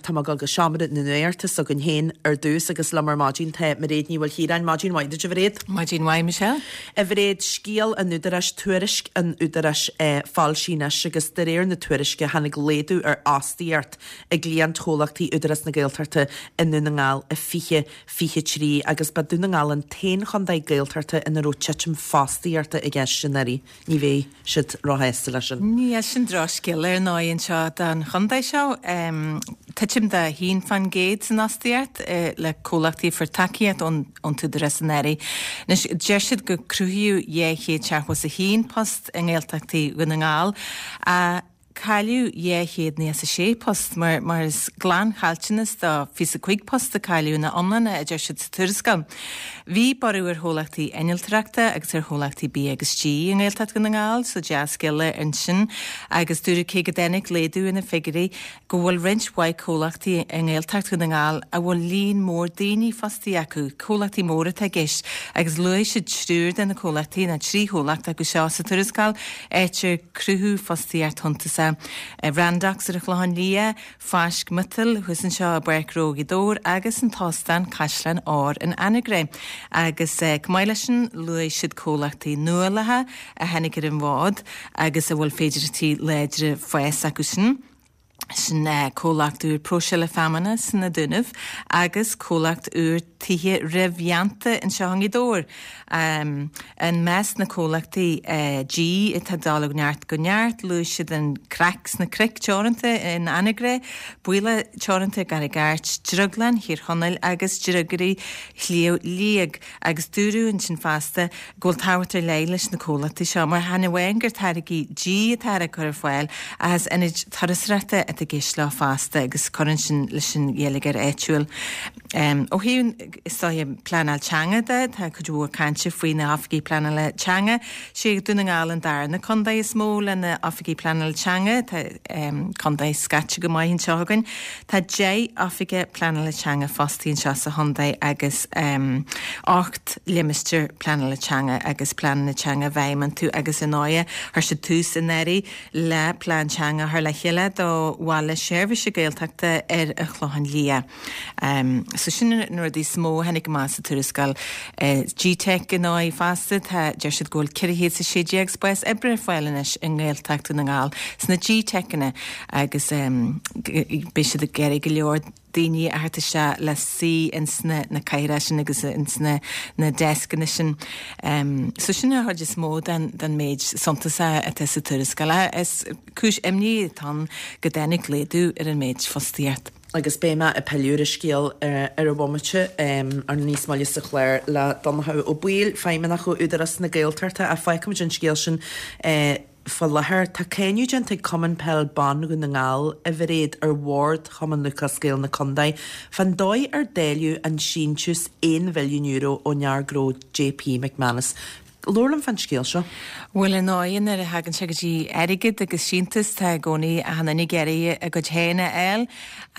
tá mé ag dul go seomra na nuachta s'againn féin ar dtús agus liom ar maidin tá Mairéad Ní Mhaoilchiaráin. Maidin mhaith duit, a Mhairéad. Maidin mhaith, Michelle. A Mhairéad, scéal an Údaráis, tuairisc an Údaráis foilsithe anois agus de réir na tuairisce tháinig laghdú ar fhostaíocht i gcliantchomhlachtaí Údarás na Gaeltachta i nDún na nGall i 2023 agus ba Dún na nGall an t-aon chontae Gaeltachta ina raibh titim fostaíochta i gceist anuraidh. Ní bheidh siad róshásta leis sin. Níl, sin drochscéal ar ndóigh anseo don chontae seo. Titim de 1% san fhostaíocht le comhlachtaí a fuair tacaíocht ón t-údarás anuraidh. Anois, deir siad gur cruthaíodh 271 post i nGaeltachtaí Dhún na nGall ach Cailleadh 296 post, mar is glanchaillteanas de 25 post a cailleadh ina iomláine, a deir siad sa tuarascáil. Bhí borradh ar chomhlachtaí innealtóireachta agus ar chomhlachtaí bia agus dí i nGaeltacht Dhún na nGall, so dea-scéala ansin, agus dúradh cé go dtáinig laghdú ar na figiúirí, go bhfuil roinnt mhaith comhlachtaí i nGaeltacht Dhún na nGall a bhfuil líon mór daoine fostaithe acu, comhlachtaí móra atá i gceist, agus luaigh siad triúr de na comhlachtaí, nó trí chomhlacht acu seo sa tuarascáil, áit ar cruthaíodh fostaíocht shuntasach, Randox ar an Chlochán Liath, Fáisc Miotail thuas anseo i bPáirc Ghnó Ghaoth Dobhair agus an tÓstán Caisleán Óir in Anagaire. Agus chomh maith leis sin, luaigh siad comhlachtaí nuálacha a tháinig ar an bhfód agus a bhfuil féidearthachtaí láidre fáis acu sin. Sin comhlacht úr próiseála feamainne sna Dúnaibh agus comhlacht úr tithe réamhdhéanta anseo i nGaoth Dobhair. I measc na comhlachtaí dí atá ag dul ó neart go neart, luaigh siad an Craic sna Cnoic Teoranta in Anagaire, Baoilleach Teoranta i gCarraig Airt, Drioglann Thír Chonaill agus Driogairí Shliabh Liag. Agus dúradh ansin fosta go bhfuil tábhacht ar leith leis na comhlachtaí seo mar chan amháin gur táirgí dí atá á gcur ar fáil ach is ionaid turasóireachta atá i gceist leo fosta agus cuireann sin leis an gheilleagar áitiúil. Ó thaobh, is dóiche, pleanáil teanga de, tá cuid mhór cainte faoi na hoifigigh pleanála teanga. Sé Dún na nGall an darna contae is mó le na oifigigh pleanála teanga. Tá contae scaite go maith anseo againn. Tá 10 oifigeach pleanála teanga fostaithe anseo sa chontae agus 8 limistéar pleanála teanga agus pleananna teanga i bhfeidhm iontu agus ar ndóighe chuir siad tús anuraidh le plean teanga a chur le chéile do Bhaile Seirbhíse Gaeltachta ar an Chlochán Liath. So sin na rudaí is mó a tháinig amach sa tuarascáil. GTeic ar ndóigh fosta, tá, deir siad go bhfuil 416 spás oibre ar fáil anois i nGaeltacht Dhún na nGall sna GTeiceanna agus beidh siad ag iarraidh go leor daoine a thabhairt isteach le suí ins na na cathaoireacha sin agus ins na na deascanna sin. So sin an chuid is mó den den méid suntasach atá sa tuarascáil. Is cúis imní atá ann go dtáinig laghdú ar an méid fostaíocht. Agus beidh mé ag pilleadh ar an scéal ar an bhomaite ar níos moille sa chlár le Donnchadh Ó Baoill, Feidhmeannach ó Údarás na Gaeltachta, ach fágfaimid an scéal sin faoi láthair. Tá cáineadh déanta ag Cumann Peil Ban Dhún na nGall, a Mhairéad, ar bhord Chumann Lúthchleas Gael na contae fán dóigh ar dáileadh an síntiús €1 mhilliún ón fhear gnó JP McManus. Labhair liom fán scéal seo. Bhuel, ar ndóigh, nuair a thagann sé go dtí airgead agus síntiús, tá i gcónaí achan duine ag iarraidh a gcuid féin a fháil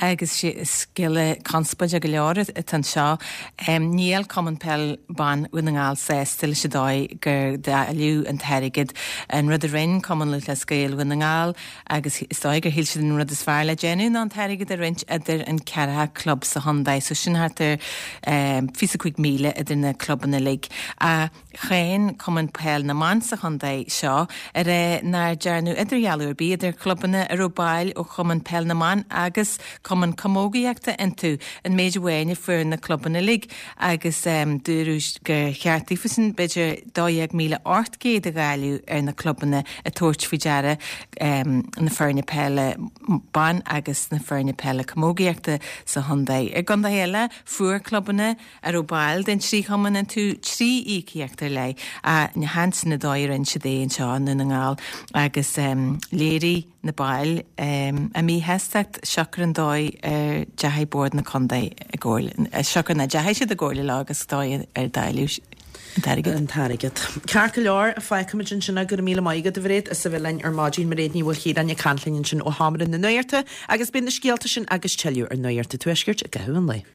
agus scéal conspóideach go leor atá anseo. Níl Cumann Peil Ban Dhún na nGall sásta leis an dóigh gur dáileadh an t-airgead. An rud a rinne Cumann Lúthchleas Gael Dhún na nGall, agus is dóigh gur shíl siad an rud is fearr le déanamh ná an t-airgead a roinnt idir an ceathracha club sa chontae, so sin thart ar 25,000 idir na clubanna uilig. Ach cháin Cumann Peil na mBan sa chontae seo ag rá nár dearnadh idirdhealú ar bith idir clubanna a raibh baill ó Chumann Peil na mBan agus Cumann Camógaíochta iontu, an méid amháin a fuair na clubanna uilig. agus dúradh gur cheart daofasan b'fhéidir 12,800 a dháileadh ar na clubanna ag tabhairt faoi deara na foirne peile ban agus na foirne peile camógaíochta sa chontae. I gcontaetha eile, fuair clubanna a raibh baill den trí chumann iontu trí íocaíocht ar leith, ach chan sin an dóigh a rinne siad é anseo i nDún na nGall agus léirigh na baill a míshástacht siocair an dóigh ar deachaigh Bord na Contae i gcomhairle, siocair nach ndeachaigh siad i gcomhairle leo agus dóigh ar dáileadh an t-airgead. an t-airgead. Ceart go leor, fágfaimid ansin é. Go raibh míle maith agat, a Mhairéad, as a bheith linn ar maidin. Mairéad Ní Mhaoilchiaráin ag caint linn ansin ó Sheomra na Nuachta agus beidh na scéalta sin agus tuilleadh ar Nuacht an Tuaiscirt i gcaitheamh an lae.